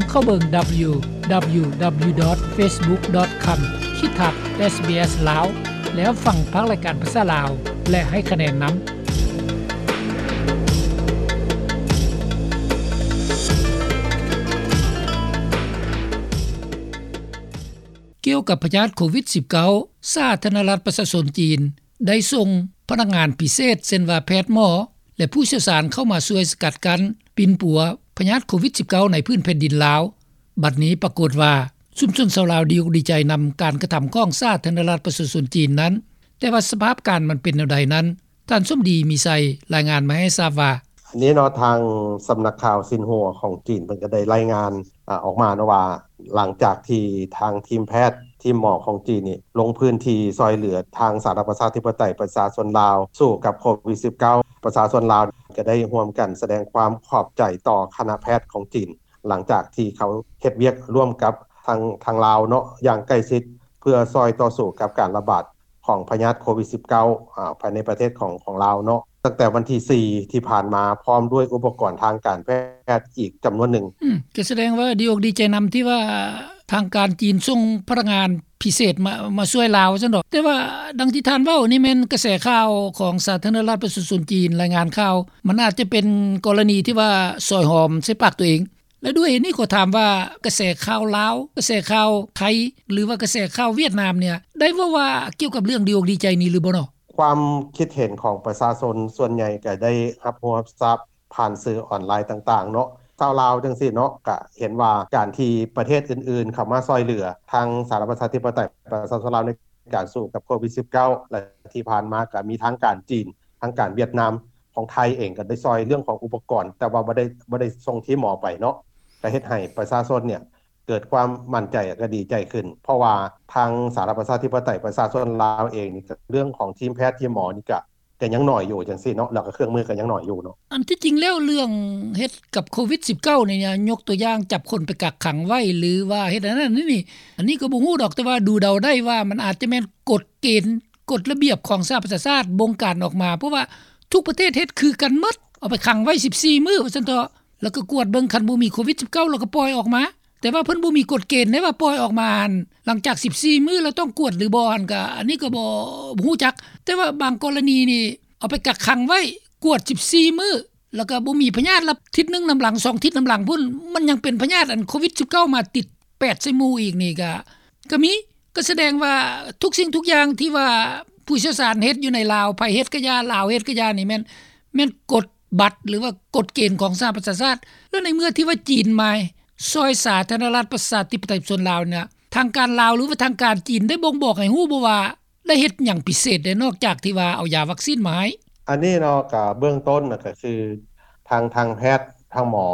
ເຂົ້າເບິ່ງ www.facebook.com/sbslao ແລ້ວຟັງພາກລາຍການພາສາລາວ ແລະ ໃຫ້ຄະແນນນຳ. ກ່ຽວກັບພະຍາດໂຄວິດ-ສິບເກົ້າ ສາທາລະນະລັດປະຊາຊົນຈີນ ໄດ້ສົ່ງພະນັກງານພິເສດ ເຊັ່ນວ່າແພດ, ໝໍ ແລະ ຜູ້ຊ່ຽວຊານເຂົ້າມາຊ່ວຍສະກັດກັ້ນ, ປິ່ນປົວພະຍາດໂຄວິດ-ສິບເກົ້າ ໃນພື້ນແຜ່ນດິນລາວ. ບັດນີ້ປາກົດວ່າ ຊຸມຊົນຊາວລາວດີອົກດີໃຈນຳການກະທຳຂອງສາທາລະນະລັດປະຊາຊົນຈີນນັ້ນ, ແຕ່ວ່າສະພາບການມັນເປັນແນວໃດນັ້ນ ທ່ານສົມດີ ມີໄຊ ລາຍງານມາໃຫ້ຊາບວ່າ: ອັນນີ້ເນາະ ທາງສຳນັກຂ່າວຊິນຫົວຂອງຈີນ ເພິ່ນກໍໄດ້ລາຍງານ ອາ ອອກມາເນາະວ່າ ຫຼັງຈາກທີ່ທາງທີມແພດ ທີມໝໍຂອງຈີນນີ້ ລົງພື້ນທີ່ຊ່ອຍເຫຼືອທາງສາທາລະນະລັດປະຊາທິປະໄຕປະຊາຊົນລາວ ສູ້ກັບໂຄວິດ-ສິບເກົ້າ ປະຊາຊົນລາວກໍໄດ້ຮ່ວມກັນສະແດງຄວາມຂອບໃຈຕໍ່ຄະນະແພດຂອງຈີນ ຫຼັງຈາກທີ່ເຂົາເຮັດວຽກຮ່ວມກັບທາງ ທາງລາວເນາະ ຢ່າງໃກ້ຊິດ ເພື່ອຊ່ອຍຕໍ່ສູ້ກັບການລະບາດຂອງພະຍາດໂຄວິດ-ສິບເກົ້າ ອາ ພາຍໃນປະເທດຂອງ ຂອງລາວເນາະ. ຕັ້ງແຕ່ວັນທີສີ່ທີ່ຜ່ານມາ ພ້ອມດ້ວຍອຸປະກອນທາງການແພດອີກຈຳນວນໜຶ່ງ. ອືມ ກໍສະແດງວ່າດີອົກດີໃຈນຳທີ່ວ່າທາງການຈີນສົ່ງພະນັກງານພິເສດມາ ມາຊ່ວຍລາວຊັ້ນດອກ. ແຕ່ວ່າດັ່ງທີ່ທ່ານເວົ້ານີ້ແມ່ນກະແສຂ່າວຂອງສາທາລະນະລັດປະຊາຊົນຈີນລາຍງານຂ່າວ, ມັນອາດຈະເປັນກໍລະນີທີ່ວ່າຊອຍຫອມໃສ່ປາກຕົວເອງ. ແລະ ດ້ວຍເຫດນີ້ຂໍຖາມວ່າ ກະແສຂ່າວລາວ, ກະແສຂ່າວໄທ ຫຼືວ່າກະແສຂ່າວຫວຽດນາມເນ່ຍ ໄດ້ເວົ້າວ່າກ່ຽວກັບເລື່ອງດີອົກດີໃຈນີ້ຫຼືບໍ່ເນາະ? ຄວາມຄິດເຫັນຂອງປະຊາຊົນສ່ວນໃຫຍ່ກໍໄດ້ຮັບຮູ້ຮັບຊາບຜ່ານສື່ອອນລາຍຕ່າງໆເນາະ. ຊາວລາວຈັ່ງຊີ້ເນາະ ກະເຫັນວ່າການທີ່ປະເທດອື່ນໆເຂົ້າມາຊ່ອຍເຫຼືອທາງສາທາລະນະລັດປະຊາທິປະໄຕປະຊາຊົນລາວໃນການສູ້ກັບໂຄວິດ-ສິບເກົ້າ ແລະ ທີ່ຜ່ານມາກະມີທາງການຈີນ ທາງການຫວຽດນາມ ຂອງໄທເອງກໍໄດ້ຊ່ອຍເລື່ອງຂອງອຸປະກອນ ແຕ່ວ່າບໍ່ໄດ້ ບໍ່ໄດ້ສົ່ງທີມໝໍໄປເນາະ ກໍເຮັດໃຫ້ປະຊາຊົນເນ່ຍເກີດຄວາມໝັ້ນໃຈ ແລະ ກໍດີໃຈຂຶ້ນ ເພາະວ່າທາງສາທາລະນະລັດປະຊາທິປະໄຕປະຊາຊົນລາວເອງນີ້ ກໍເລື່ອງຂອງທີມແພດ ທີມໝໍນີ້ ກໍ ກໍຍັງໜ້ອຍຢູ່ຈັ່ງຊີ້ເນາະ ແລ້ວກໍເຄື່ອງມືກໍຍັງໜ້ອຍຢູ່ເນາະ. ອັນທີ່ຈິງແລ້ວເລື່ອງເຮັດກັບໂຄວິດ-ສິບເກົ້າ ນີ້ ຍົກຕົວຢ່າງຈັບຄົນໄປກັກຂັງໄວ້ ຫຼືວ່າເຮັດອັນນັ້ນອັນນີ້ ອັນນີ້ກໍບໍ່ຮູ້ດອກ ແຕ່ວ່າດູເດົາໄດ້ວ່າມັນອາດຈະແມ່ນກົດເກນ ກົດລະບຽບຂອງສະຫະປະຊາຊາດບົງການອອກມາ ເພາະວ່າທຸກປະເທດເຮັດຄືກັນໝົດ ເອົາໄປຂັງໄວ້ສິບສີ່ມື້ວ່າຊັ້ນເຖາະ ແລ້ວກໍກວດເບິ່ງ ຄັນບໍ່ມີໂຄວິດ-ສິບເກົ້າ ແລ້ວກໍປ່ອຍອອກມາ. ແຕ່ວ່າເພິ່ນບໍ່ມີກົດເກນເດ້ວ່າປ່ອຍອອກມາຫັ້ນ ຫຼັງຈາກສິບສີ່ມື້ແລ້ວຕ້ອງກວດຫຼືບໍ່ຫັ້ນ ກໍອັນນີ້ກໍບໍ່ ບໍ່ຮູ້ຈັກ. ແຕ່ວ່າບາງກໍລະນີນີ້ ເອົາໄປກັກຂັງໄວ້ ກວດສິບສີ່ມື້ ແລ້ວກໍບໍ່ມີພະຍາດ ແລ້ວທິດໜຶ່ງນຳຫຼັງ ສອງທິດນຳຫຼັງພຸ້ນ ມັນຍັງເປັນພະຍາດອັນໂຄວິດ-ສິບເກົ້າ ມາຕິດແປດໃສ່ໝູ່ອີກນີ້ ກໍ ກໍມີ ກໍສະແດງວ່າທຸກສິ່ງທຸກຢ່າງທີ່ວ່າຜູ້ຊ່ຽວຊານເຮັດຢູ່ໃນລາວ ໄທເຮັດກະຢ່າ ລາວເຮັດກະຢ່ານີ້ແມ່ນ ແມ່ນກົດບັດ ຫຼືວ່າກົດເກນຂອງສະຫະປະຊາຊາດ. ແລ້ວໃນເມື່ອທີ່ວ່າຈີນມາຊ່ອຍສາທາລະນະລັດປະຊາທິປະໄຕປະຊາຊົນລາວນີ້ ທາງການລາວ ຫຼືວ່າທາງການຈີນໄດ້ບົ່ງບອກໃຫ້ຮູ້ບໍ່ວ່າ ໄດ້ເຮັດຫຍັງພິເສດແດ່ ນອກຈາກທີ່ວ່າເອົາຢາວັກຊີນມາໃຫ້? ອັນນີ້ເນາະ ກະເບື້ອງຕົ້ນນະ ກະຄືທາງ ທາງແພດ ທາງໝໍ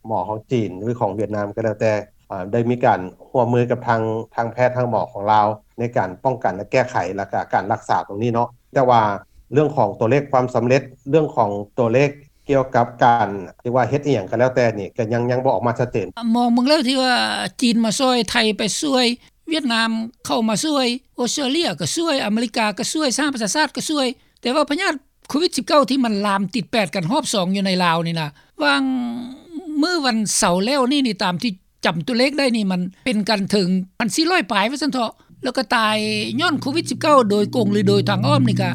ໝໍຂອງຈີນ ຫຼືຂອງຫວຽດນາມກໍແລ້ວແຕ່ ອາ ໄດ້ມີການຮ່ວມມືກັບທາງ ທາງແພດ ທາງໝໍຂອງລາວ ໃນການປ້ອງກັນ ແລະ ແກ້ໄຂ ແລ້ວກະການລັກສາຕົງນີ້ເນາະ. ແຕ່ວ່າເລື່ອງຂອງຕົວເລກຄວາມສຳເລັດ ເລື່ອງຂອງຕົວເລກກ່ຽວກັບການ ຫຼືວ່າເຮັດອີ່ຫຍັງກໍແລ້ວແຕ່ນີ້ ກໍຍັງ ຍັງບໍ່ອອກມາຊັດເຈນ. ມອງເບິ່ງແລ້ວທີ່ວ່າຈີນມາຊ່ວຍ ໄທໄປຊ່ວຍ ຫວຽດນາມເຂົ້າມາຊ່ວຍ ອອສເຕຣເລຍກໍຊ່ວຍ ອາເມລິກາກໍຊ່ວຍ ສະຫະປະຊາຊາດກໍຊ່ວຍ ແຕ່ວ່າພະຍາດໂຄວິດ-ສິບເກົ້າ ທີ່ມັນລາມຕິດແປດກັນຮອບສອງຢູ່ໃນລາວນີ້ນະ ຫວ່າງມື້ວັນເສົາແລ້ວນີ້ນີ້ ຕາມທີ່ຈຳຕົວເລກໄດ້ນີ້ ມັນເປັນກັນເຖິງພັນສີ່ຮ້ອຍປາຍວ່າຊັ້ນເຖາະ ແລ້ວກໍຕາຍຍ້ອນໂຄວິດ-ສິບເກົ້າ ໂດຍກົງ ຫຼື ໂດຍທາງອ້ອມນີ້ ກະ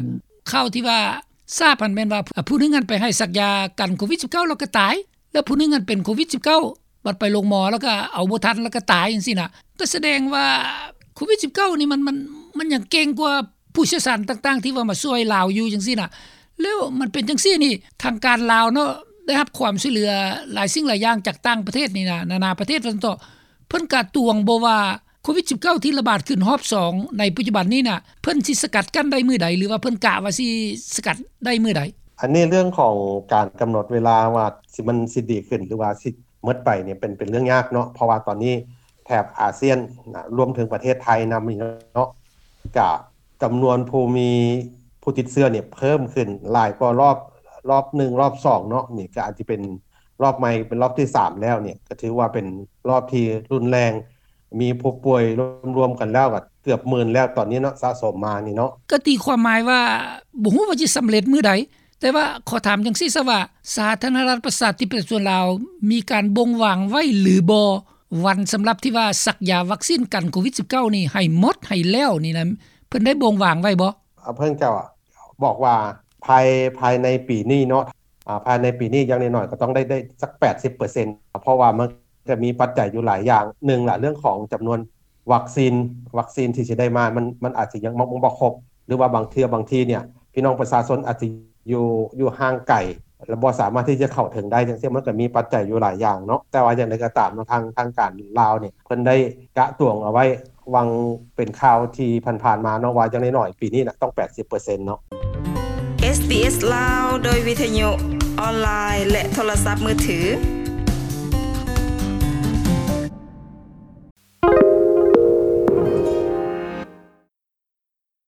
ຂ່າວທີ່ວ່າຊາບຫັ້ນແມ່ນວ່າ ອາ ຜູ້ໜຶ່ງຫັ້ນໄປໃຫ້ສັກຢາກັນໂຄວິດ-ສິບເກົ້າ ແລ້ວກໍຕາຍ ແລ້ວຜູ້ໜຶ່ງຫັ້ນເປັນໂຄວິດ-ສິບເກົ້າ ບັດໄປໂລງໝໍແລ້ວກໍເອົາບໍ່ທັນ ແລ້ວກໍຕາຍຈັ່ງຊີ້ນະ ກໍສະແດງວ່າໂຄວິດ-ສິບເກົ້າ ນີ້ມັນ ມັນ ມັນຍັງເກັ່ງກວ່າຜູ້ຊ່ຽວຊານຕ່າງໆ ທີ່ວ່າມາຊ່ວຍລາວຢູ່ຈັ່ງຊີ້ນະ. ແລ້ວມັນເປັນຈັ່ງຊີ້ນີ້ ທາງການລາວເນາະ ໄດ້ຮັບຄວາມຊ່ວຍເຫຼືອຫຼາຍສິ່ງຫຼາຍຢ່າງຈາກຕ່າງປະເທດນີ້ນະ ນານາປະເທດວ່າຊັ້ນເຖາະ ເພິ່ນກະຕວງບໍ່ວ່າໂຄວິດ-ສິບເກົ້າ ທີ່ລະບາດຂຶ້ນຮອບສອງໃນປັດຈຸບັນນີ້ນະ ເພິ່ນຊິສະກັດກັ້ນໄດ້ມື້ໃດ ຫຼືວ່າເພິ່ນກະວ່າຊິສະກັດໄດ້ມື້ໃດ? ອັນນີ້ເລື່ອງຂອງການກຳນົດເວລາວ່າຊິ ມັນຊິດີຂຶ້ນ ຫຼືວ່າຊິ ໝົດໄປນີ້ເປັນ ເປັນເລື່ອງຍາກເນາະ ເພາະວ່າຕອນນີ້ແຖບອາຊຽນນະ ລວມເຖິງປະເທດໄທນຳນີ້ເນາະ ກະຈຳນວນຜູ້ມີ ຜູ້ຕິດເຊື້ອນີ້ເພີ່ມຂຶ້ນຫຼາຍກວ່າລອບ ລອບໜຶ່ງ ລອບສອງເນາະ ນີ້ກະອາດຈະເປັນລອບໃໝ່ ເປັນລອບທີສາມແລ້ວນີ້ ກະຖືວ່າເປັນລອບທີ່ຮຸນແຮງ ມີຜູ້ປ່ວຍລວມໆກັນແລ້ວກະເກືອບໝື່ນແລ້ວຕອນນີ້ເນາະ ສະສົມມານີ້ເນາະ. ກະຕີຄວາມໝາຍວ່າ ບໍ່ຮູ້ວ່າຊິສຳເລັດມື້ໃດ ແຕ່ວ່າຂໍຖາມຈັ່ງຊີ້ຊະວ່າ ສາທາລະນະລັດ ປະຊາທິປະໄຕ ປະຊາຊົນລາວ ມີການບົ່ງວາງໄວ້ຫຼືບໍ່ ວັນສຳລັບທີ່ວ່າສັກຢາວັກຊີນກັນໂຄວິດ-19 ນີ້ ໃຫ້ໝົດໃຫ້ແລ້ວນີ້ນະ ເພິ່ນໄດ້ບົ່ງວາງໄວ້ບໍ່? ເພິ່ນເຈົ້າບອກວ່າ ພາຍ ພາຍໃນປີນີ້ເນາະ ອາ ພາຍໃນປີນີ້ຢ່າງໜ້ອຍໆກໍຕ້ອງໄດ້ ໄດ້ສັກ ແປດສິບເປີເຊັນ ເພາະວ່າມັນຈະມີປັດໄຈຢູ່ຫຼາຍຢ່າງ ໜຶ່ງລະ ເລື່ອງຂອງຈຳນວນວັກຊີນ ວັກຊີນທີ່ຊິໄດ້ມາ ມັນ ມັນອາດຊິຍັງບໍ່ຄົບ ຫຼືວ່າບາງເທື່ອບາງທີເນຍ ພີ່ນ້ອງປະຊາຊົນອາດຊິຢູ່ ຢູ່ຫ່າງໄກ ແລະບໍ່ສາມາດທີ່ຈະເຂົ້າເຖິງໄດ້ ຈັ່ງຊີ້ ມັນກໍມີປັດໄຈຢູ່ຫຼາຍຢ່າງເນາະ ແຕ່ວ່າຢ່າງໃດກໍຕາມເນາະ ທາງ ທາງການລາວເນຍ ເພິ່ນໄດ້ກະຕວງເອົາໄວ້ ຫວ່າງເປັນຂ່າວທີ່ຜ່ານໆມາເນາະ ວ່າຢ່າງໜ້ອຍໆປີນີ້ນະ ຕ້ອງ ແປດສິບເປີເຊັນເນາະ. ເອສບີເອສລາວ ໂດຍວິທະຍຸ ອອນລາຍ ແລະໂທລະສັບມືຖື